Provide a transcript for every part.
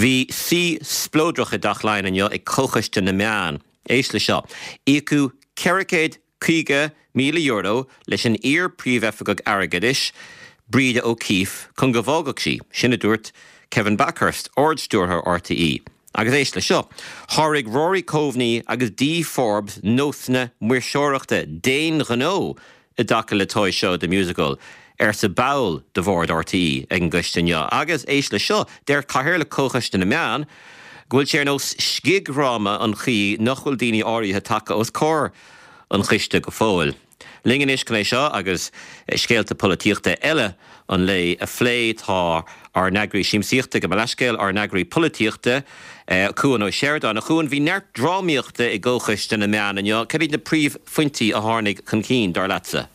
Bhí suí spleodrach i dTeach Laighean inniu ag Comhchoiste na Meán. Éist le seo. Íocadh €450,000 leis an iar-Phríomhoifigeach Airgeadais, Breda O'Keeffe, chun go bhfágfadh sí. Sin a dúirt Kevin Bakhurst, Ard-Stiúrthóir RTÉ. Agus éist le seo. Sháraigh Rory Coveney agus Dee Forbes nósanna maoirseoireachta d'aon ghnó i dtaca le Toy Show The Musical, arsa ball de bhord RTÉ ag an gcoiste inniu. Agus éist le seo, deir Cathaoirleach Chomhchoiste na Meán go bhfuil sé ar nós scigdhráma an chaoi nach bhfuil daoine áirithe tagtha os comhair an choiste go fóill. Linn anois chun é seo agus scéalta polaitíochta eile an lae a phlé tá ár n-eagraí siamsaíochta, gabh mo leathscéal, ár n-eagraí polaitíochta, Cuan Ó Seireadáin. A Chuain, bhí neart drámaíochta i gComhchoiste na Meán inniu. Cad iad na príomhphointí a tháinig chun cinn, dar leatsa?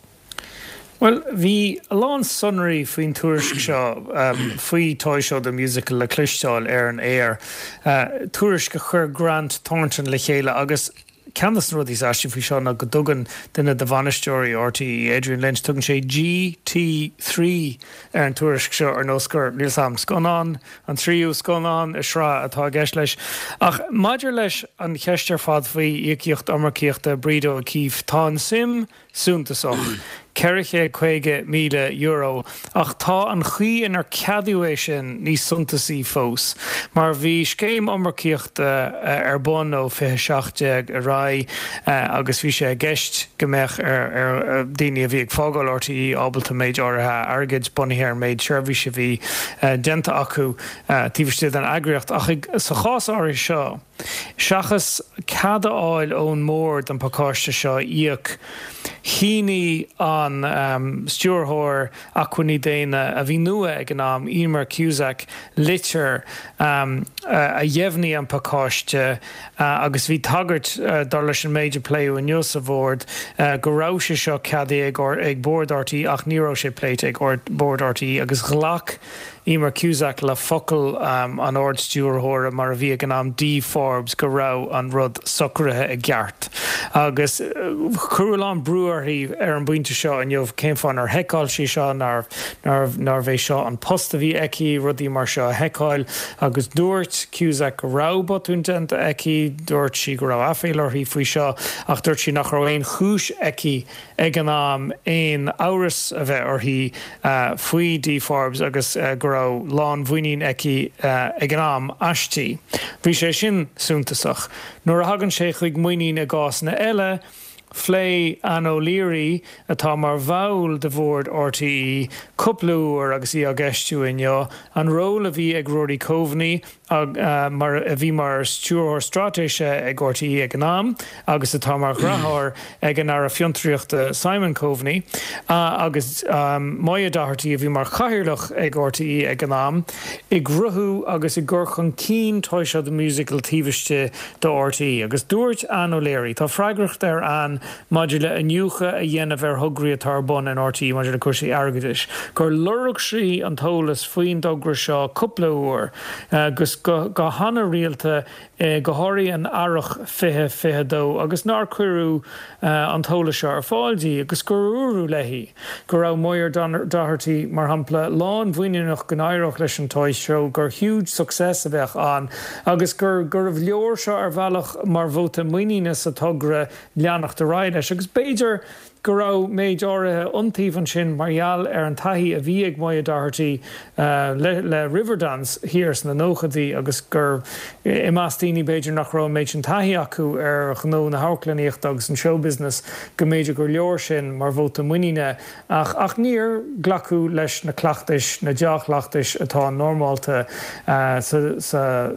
Bhuel, bhí a lán sonraí faoin tuairisc seo faoi Toy Show The Musical le cloisteáil ar an aer, tuairisc a chuir Grant Thornton le chéile agus Ceann de na rudaí is aistí faoi seo ná go dtugann duine de bhainisteoirí RTÉ, Adrian Lynch, tugann sé GT3 ar an tuairisc seo ar nós gur, níl 's a'm, scannán, an tríú scannán i sraith atá i gceist leis. Ach maidir leis an cheist ar fad faoi íocaíocht iomarcaíochta Breda O'Keeffe, tá an suim suntasach, €450,000, ach tá an chaoi inar ceadaíodh é sin níos suntasaí fós, mar bhí scéim iomarcaíochta ar bun ó 2017 ar aghaidh agus bhí sé i gceist go mbeadh ar dhaoine a bhí ag fágáil RTÉ ábalta méid áirithe airgid, bunaithe ar an méid seirbhíse a bhí déanta acu taobh istigh den eagraíocht. Ach sa chás áirithe seo, Seachas cead a fháil ón mBord an pacáiste seo a íoc, shínigh an Stiúrthóir Acmhainní Daonna, a bhí nua ag an am, Emer Cusack, litir a dheimhnigh an pacáiste agus bhí tagairt, dar leis an méid a pléadh inniu sa Bhord, go raibh sé seo ceadaithe ag Bord RTÉ ach ní raibh sé pléite ag Bord RTÉ agus ghlac Emer Cusack le focal an Ard-Stiúrthóra, mar a bhí ag an am, Dee Forbes, go raibh an rud socraithe i gceart. Agus cuireadh a lán brú uirthi ar an bpointe seo inniu, cén fáth nár sheiceáil sí seo, nárbh é seo an post a bhí aici, rudaí mar seo a sheiceáil. Agus dúirt Cusack go raibh botún déanta aici, dúirt sí go raibh aiféala uirthi faoi seo, ach dúirt sí nach raibh aon chúis aici ag an am aon amhras a bheith uirthi faoi Dee Forbes agus go raibh lánmhuinín aici ag an am aisti. Bhí sé sin suntasach. Nuair a thagann sé chuig muinín i gcásanna eile, phléigh Ann O'Leary, atá mar bhall de bhord RTÉ, cúpla uair agus í á gceistiú inniu, an ról a bhí ag Rory Coveney, mar a bhí mar Stiúrthóir Straitéise ag RTÉ ag an am agus atá mar dheartháir ag an Aire Fiontraíochta Simon Coveney, agus Moya Doherty a bhí mar Chathaoirleach ag RTÉ ag an am, i gcruthú agus i gcur chun cinn Toy Show The Musical taobh istigh de RTÉ. Agus dúirt Ann O'Leary, tá freagracht ar Ann maidir le iniúchadh a dhéanamh ar thograí atá ar bun in RTÉ maidir le cúrsaí airgeadais, gur lorg sí an t-eolas faoin dtogra seo cúpla uair agus go han-rialta, go háirithe in earrach 2022, agus nár cuireadh an t-eolas seo ar fáil di, agus gur dúradh léi go raibh Moya Doherty, mar shampla, lánmhuiníneach go n-éireodh leis an Toy Show, gur huge success a bheadh ann, agus gur gurbh leor seo ar bhealach mar vóta muiníne sa togra leanacht ar aghaidh leis. Agus b'fhéidir go raibh méid áirithe iontaoibh ansin mar gheall ar an taithí a bhí ag Moya Doherty le Riverdance thiar sna nóchaidí agus gur i measc daoine b'fhéidir nach raibh an méid sin taithí acu ar ghnó na hamharclannaíochta agus an showbusiness go mb'fhéidir gur leor sin mar vóta muiníne ach ach níor glacadh leis na cleachtais, na dea-chleachtais atá normálta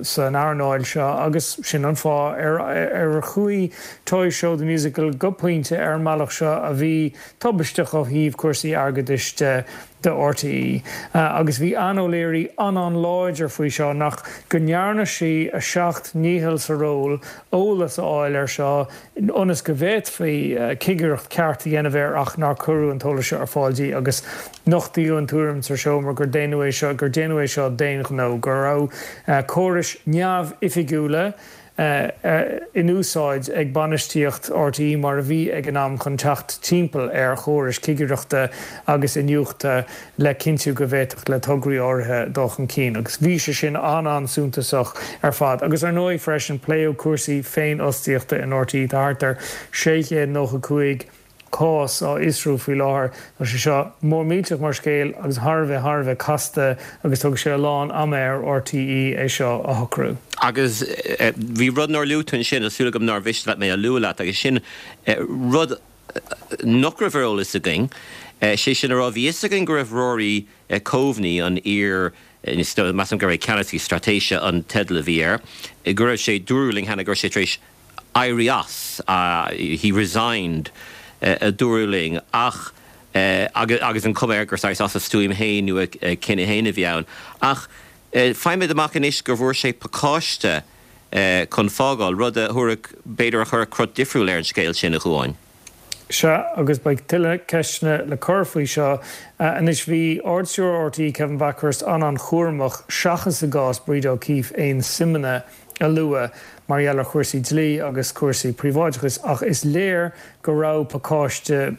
san earnáil seo agus sin an fáth ar ar chuaigh Toy Show The Musical go pointe ar an mbealach seo a bhí tubaisteach ó thaobh cúrsaí airgeadais de do RTÉ. Agus bhí Ann O'Leary an-an-láidir faoi seo nach go ndearna sí a seacht ndícheall sa ról eolas a fháil air seo ionas go bhféadfaí cigireacht ceart a dhéanamh air ach nár cuireadh an t-eolas seo ar fáil di agus nochtaíodh an tuairim sa seomra gur déanadh é seo gur déanadh é seo d'aon ghnó, go raibh córais neamhoifigiúla. In úsáid ag bainistíocht RTÉ mar a bhí ag an am chun teacht timpeall ar chórais cigireachta agus iniúchta le cinntiú go bhféadfadh le tograí áirithe dul chun cinn. Agus bhí sé sin an-an-suntasach ar fad. Agus ar ndóigh freisin pléadh cúrsaí féinfhostaíochta in RTÉ. Tá thart ar 695 cás á fhiosrú faoi láthair. Tá sé seo mór millteach mar scéal agus thar a bheith, thar a bheith casta agus tógfaidh sé a lán ama ar RTÉ é seo a shocrú. Agus bhí rud nár luaigh tú ansin, tá súil agam nár mhiste leat mé a lua leat, agus sin rud nach raibh ar eolas againn, sé sin a rá, bhí fhios againn go raibh Rory Coveney, an iar, measaim gurbh é Ceannasaí Straitéise an teideal a bhí air, go raibh sé, dúradh linn cheana go raibh sé tar éis éirí as, he resigned, a dúradh linn, ach, agus an chuma air gur saghas as a stuaim féin nó a chinneadh féin a bhí ann. Ach faighimid amach anois go bhfuair sé pacáiste chun fágáil, rud a thabharfadh, b'fhéidir a chuirfeadh crot difriúil ar an scéal sin, a Chuáin. Sea, agus beidh tuilleadh ceisteanna le cur faoi seo. Anois, bhí Ard-Stiúrthóir RTÉ, Kevin Bakhurst, an-an-chúramach, seachas i gcás Breda O'Keeffe, aon suimeanna a lua mar gheall ar chúrsaí dlí agus cúrsaí príobháideachais ach is léir go raibh pacáiste,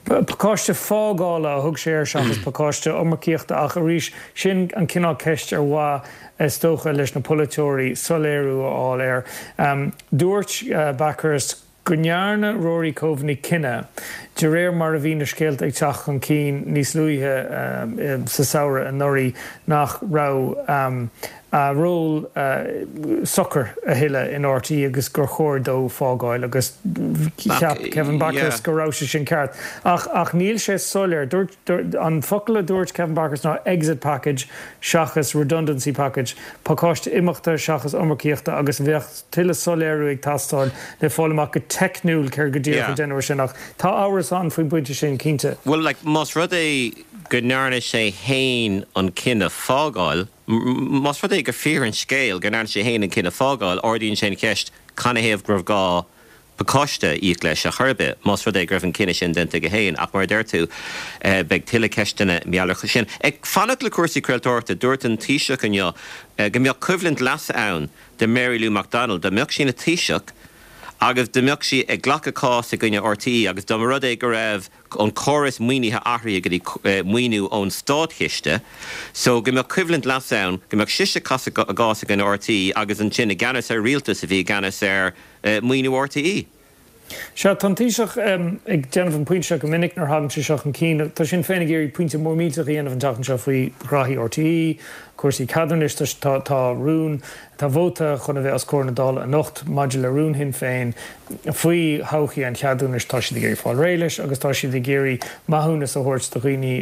pacáiste fágála a thug sé air seachas pacáiste iomarcaíochta ach arís sin an cineál ceist ar mhaith is dócha leis na polaiteoirí soiléiriú a fháil air. Dúirt Bakhurst go ndearna Rory Coveney cinneadh, de réir mar a bhí na scéalta ag teacht chun cinn níos luaithe sa samhradh anuraidh, nach raibh a ról socair a thuilleadh in RTÉ agus gur chóir dó fágáil agus cheap Kevin Bakhurst go raibh sé sin ceart. Ach ach níl sé soiléir. Dúirt, an focal a dúirt Kevin Bakhurst ná exit package seachas redundancy package, pacáiste imeachta seachas iomarcaíochta agus bheadh tuilleadh soiléiriú ag teastáil le fáil amach go teicniúil céard go díreach a deineadh air sin ach tá amhras ann faoin bpointe sin, cinnte. Bhuel, like, más rud é go ndearna sé fhéin an cinneadh fágáil, más rud é gur fíor an scéal go ndearna sé fhéin an cinneadh fágáil, ardaíonn sé an cheist canathaobh go raibh gá pacáiste a íoc leis ar chor ar bith, más rud é go raibh an cinneadh sin déanta aige féin. Ach mar a deir tú, beidh tuilleadh ceisteanna mar gheall air sin. Ag fanacht le cúrsaí craoltóireachta, dúirt an Taoiseach inniu go mbeadh coimhlint leasa ann do Mary Lou McDonald dá mbeadh sí ina Taoiseach agus dá mbeadh sí ag glacadh cás i gcoinne RTÉ agus dá mba rud é go raibh an córas maoinithe athraithe go dtí maoiniú ón státchiste so go mbeadh coimhlint leasa ann go mbeadh sise ag casadh a gcás i gcoinne RTÉ agus ansin i gceannas ar rialtas a bhí i gceannas ar maoiniú RTÉ. Sea, tá an Taoiseach ag déanamh an pointe seo go minic nuair a thagann sé seo chun cinn. Tá Sinn Féin ag iarraidh pointe mór millteach a dhéanamh an tseachtain seo faoi ghraithí RTÉ, cúrsaí ceadúnais. Tá tá rún, tá vóta chun a bheith os comhair na Dála anocht maidir le rún Shinn Féin faoi thodhchaí an cheadúnais. Tá siad ag iarraidh fáil réidh leis agus tá siad ag iarraidh maithiúnas a thabhairt do dhaoine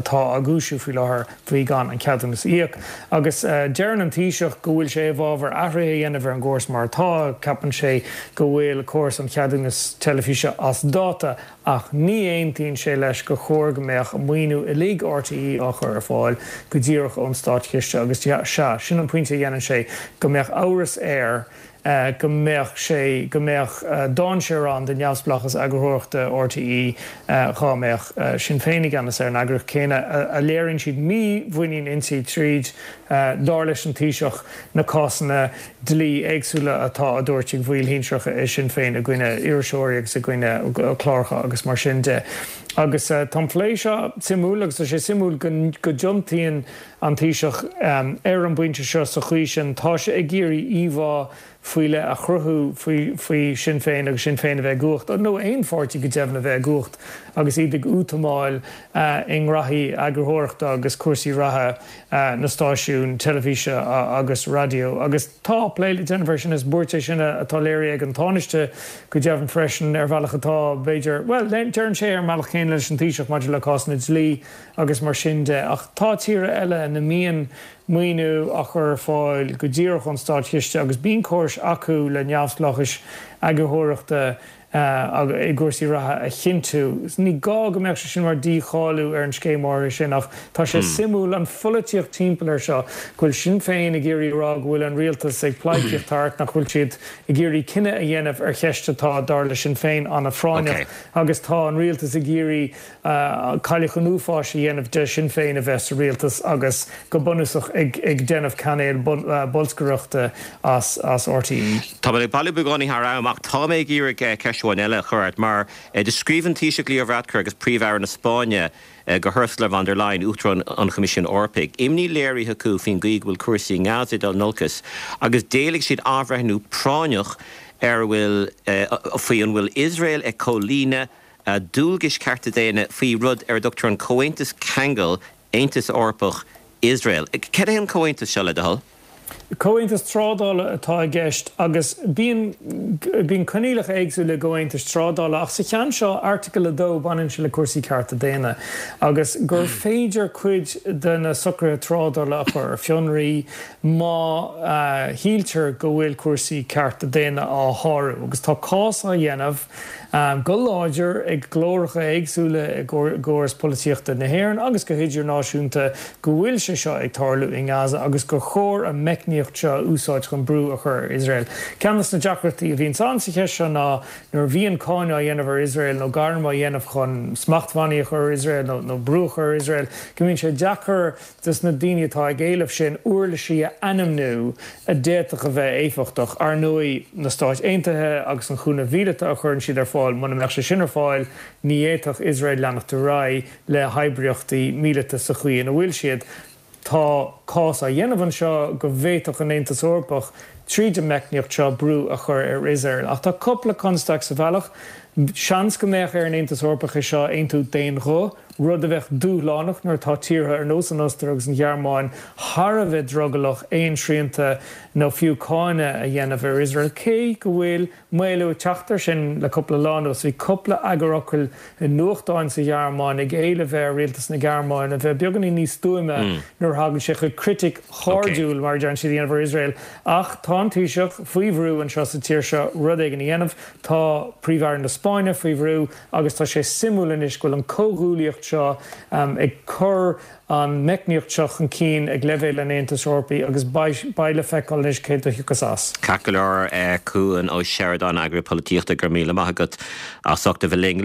atá á gcúisiú faoi láthair. faoi gan an ceadúnas a íoc. Agus deireann an Taoiseach go bhfuil sé i bhfabhar athruithe a dhéanamh ar an gcóras mar atá, ceapann sé go bhfuil córas an cheadúnais teilifíse as dáta ach ní aontaíonn sé leis gur chóir go mbeadh maoiniú uilig RTÉ á chur ar fáil go díreach ón státchiste agus sea, sin an pointe a dhéanann sé, go mbeadh amhras air go mbeadh sé, go mbeadh dainséar ann do neamhspleáchas eagarthóireachta RTÉ dhá mbeadh Sinn Féin i gceannas ar an eagraíocht céanna, a léiríonn siad mímhuinín inti tríd, dar leis an Taoiseach, na cásanna dlí éagsúla atá á dtabhairt ag baill shinsearacha i Sinn Féin i gcoinne iriseoirí agus i gcoinne cláracha agus mar sin de. Agus tá an plé seo suimiúil agus tá sé suimiúil go dtiontaíonn an Taoiseach ar an bpointe seo sa chaoi sin. Tá sé ag iarraidh íomhá faoi leith a chruthú faoi Sinn Féin agus Sinn Féin a bheith i gcumhacht, nó aon pháirtí go deimhin a bheith i gcumhacht agus iad ag útamáil i ngraithí eagarthóireachta agus cúrsaí reatha na stáisiún teilifíse agus raidió. Agus tá plé le déanamh air sin. Is buairt é sin atá léirithe ag an Tánaiste go deimhin freisin ar bhealach atá, b'fhéidir, bhuel, deireann sé ar an mbealach céanna leis an Taoiseach maidir le cásanna dlí agus mar sin de. Ach tá tíortha eile ina mbíonn maoiniú á chur ar fáil go díreach ón státchiste agus bíonn córais acu le neamhspleáchais eagarthóireachta. I gcúrsaí reatha a chinntiú. Ní gá go mbeadh sé sin mar dícháiliú ar an scéim áirithe sin ach tá sé suimiúil an pholaitíocht timpeall air seo, go bhfuil Sinn Féin ag iarraidh a rá go bhfuil an rialtas ag pleidhcíocht thart, nach bhfuil siad ag iarraidh cinneadh a dhéanamh ar cheist atá, dar le Sinn Féin, an-phráinneach agus tá an rialtas ag iarraidh cailleach an uafáis a dhéanamh de Shinn Féin a bheith sa rialtas agus go bunúsach ag déanamh cainéal bolscaireachta as RTÉ. Tá mé ag bailiú beagáinín thar am ach tá mé ag iarraidh ceist amháin eile a chur ort mar do scríobh an Taoiseach Leo Varadkar agus Príomh-Aire na Spáinne go hUrsula von der Leyen, Uachtarán an Choimisiúin Eorpaigh, imní léirithe acu faoin gcaoi go bhfuil cúrsaí i nGaza ag dul in olcas agus d'éiligh siad athbhreithniú práinneach ar a bhfuil faoi an bhfuil Iosrael ag comhlíonadh dualgais cearta daonna faoi rud ar a dtugtar an Comhaontas Ceangail Aontas Eorpach, Iosrael. Cad é an comhaontas seo, le do thoil? Comhaontas trádála atá i gceist agus bíonn bíonn coinníollacha éagsúla i gcomhaontais trádála ach sa cheann seo, Airteagal 2, baineann sé le cúrsaí cearta daonna agus gur féidir cuid de na socruithe trádála a chur ar fionraí má shíltear go bhfuil cúrsaí cearta daonna á shárú agus tá cás á dhéanamh go láidir ag glóracha éagsúla i gcóras polaitíochta na hÉireann agus go hidirnáisiúnta go bhfuil sé seo ag tarlú i nGaza agus gur chóir an meicníocht seo a úsáid chun brú a chur ar Iosrael. Ceann de na deacrachtaí a bhíonns ann sa cheist seo ná nuair a bhíonn cáineadh á dhéanamh ar Iosrael nó gairm á dhéanamh chun smachtbhannaí a chur ar Iosrael nó brú a chur ar Iosrael go mbíonn sé deacair dos na daoine atá ag éileamh sin uirlisí a ainmniú a d'fhéadfadh a bheith éifeachtach. Ar ndóigh, na Stáit Aontaithe agus an chúnamh mhíleata a chuireann siad ar fáil, muna mbeadh sé sin ar fáil, ní fhéadfadh Iosrael leanacht ar aghaidh le hoibríochtaí míleata sa chaoi ina bhfuil siad. Tá cás á dhéanamh anseo go bhféadfadh an Aontas Eorpach, tríd an meicníocht seo, brú a chur ar Iosrael. Ach tá cúpla constaic sa bhealach. Seans go mbeadh ar an Aontas Eorpach é seo a aontú d'aon ghuth, rud a bheadh dúshlánach nuair atá tíortha ar nós an Ostair agus an Ghearmáin thar a bheith drogallach aon srianta nó fiú cáineadh a dhéanamh ar Iosrael, cé go bhfuil maolú ag teacht air sin le cúpla lá anuas. Bhí cúpla eagarfhocal i nuachtáin sa Ghearmáin ag éileamh ar rialtas na Gearmáine a bheith beagáinín níos stuaime nuair a thagann sé chuig critic chairdiúil, mar a deireann siad, a dhéanamh ar Iosrael. Ach tá an Taoiseach faoi bhrú anseo sa tír seo rud éigin a dhéanamh. Tá Príomh-Aire na Spáinne faoi bhrú agus tá sé suimiúil anois go bhfuil an comhghuaillíocht seo ag cur an meicníocht seo chun cinn ag leibhéal an Aontais Eorpaigh agus beidh le feiceáil anois céard a thiocfas as. Ceart go leor, Cuan Ó Seireadáin, Eagarthóir Polaitíochta, go raibh míle maith agat as ucht a bheith linn.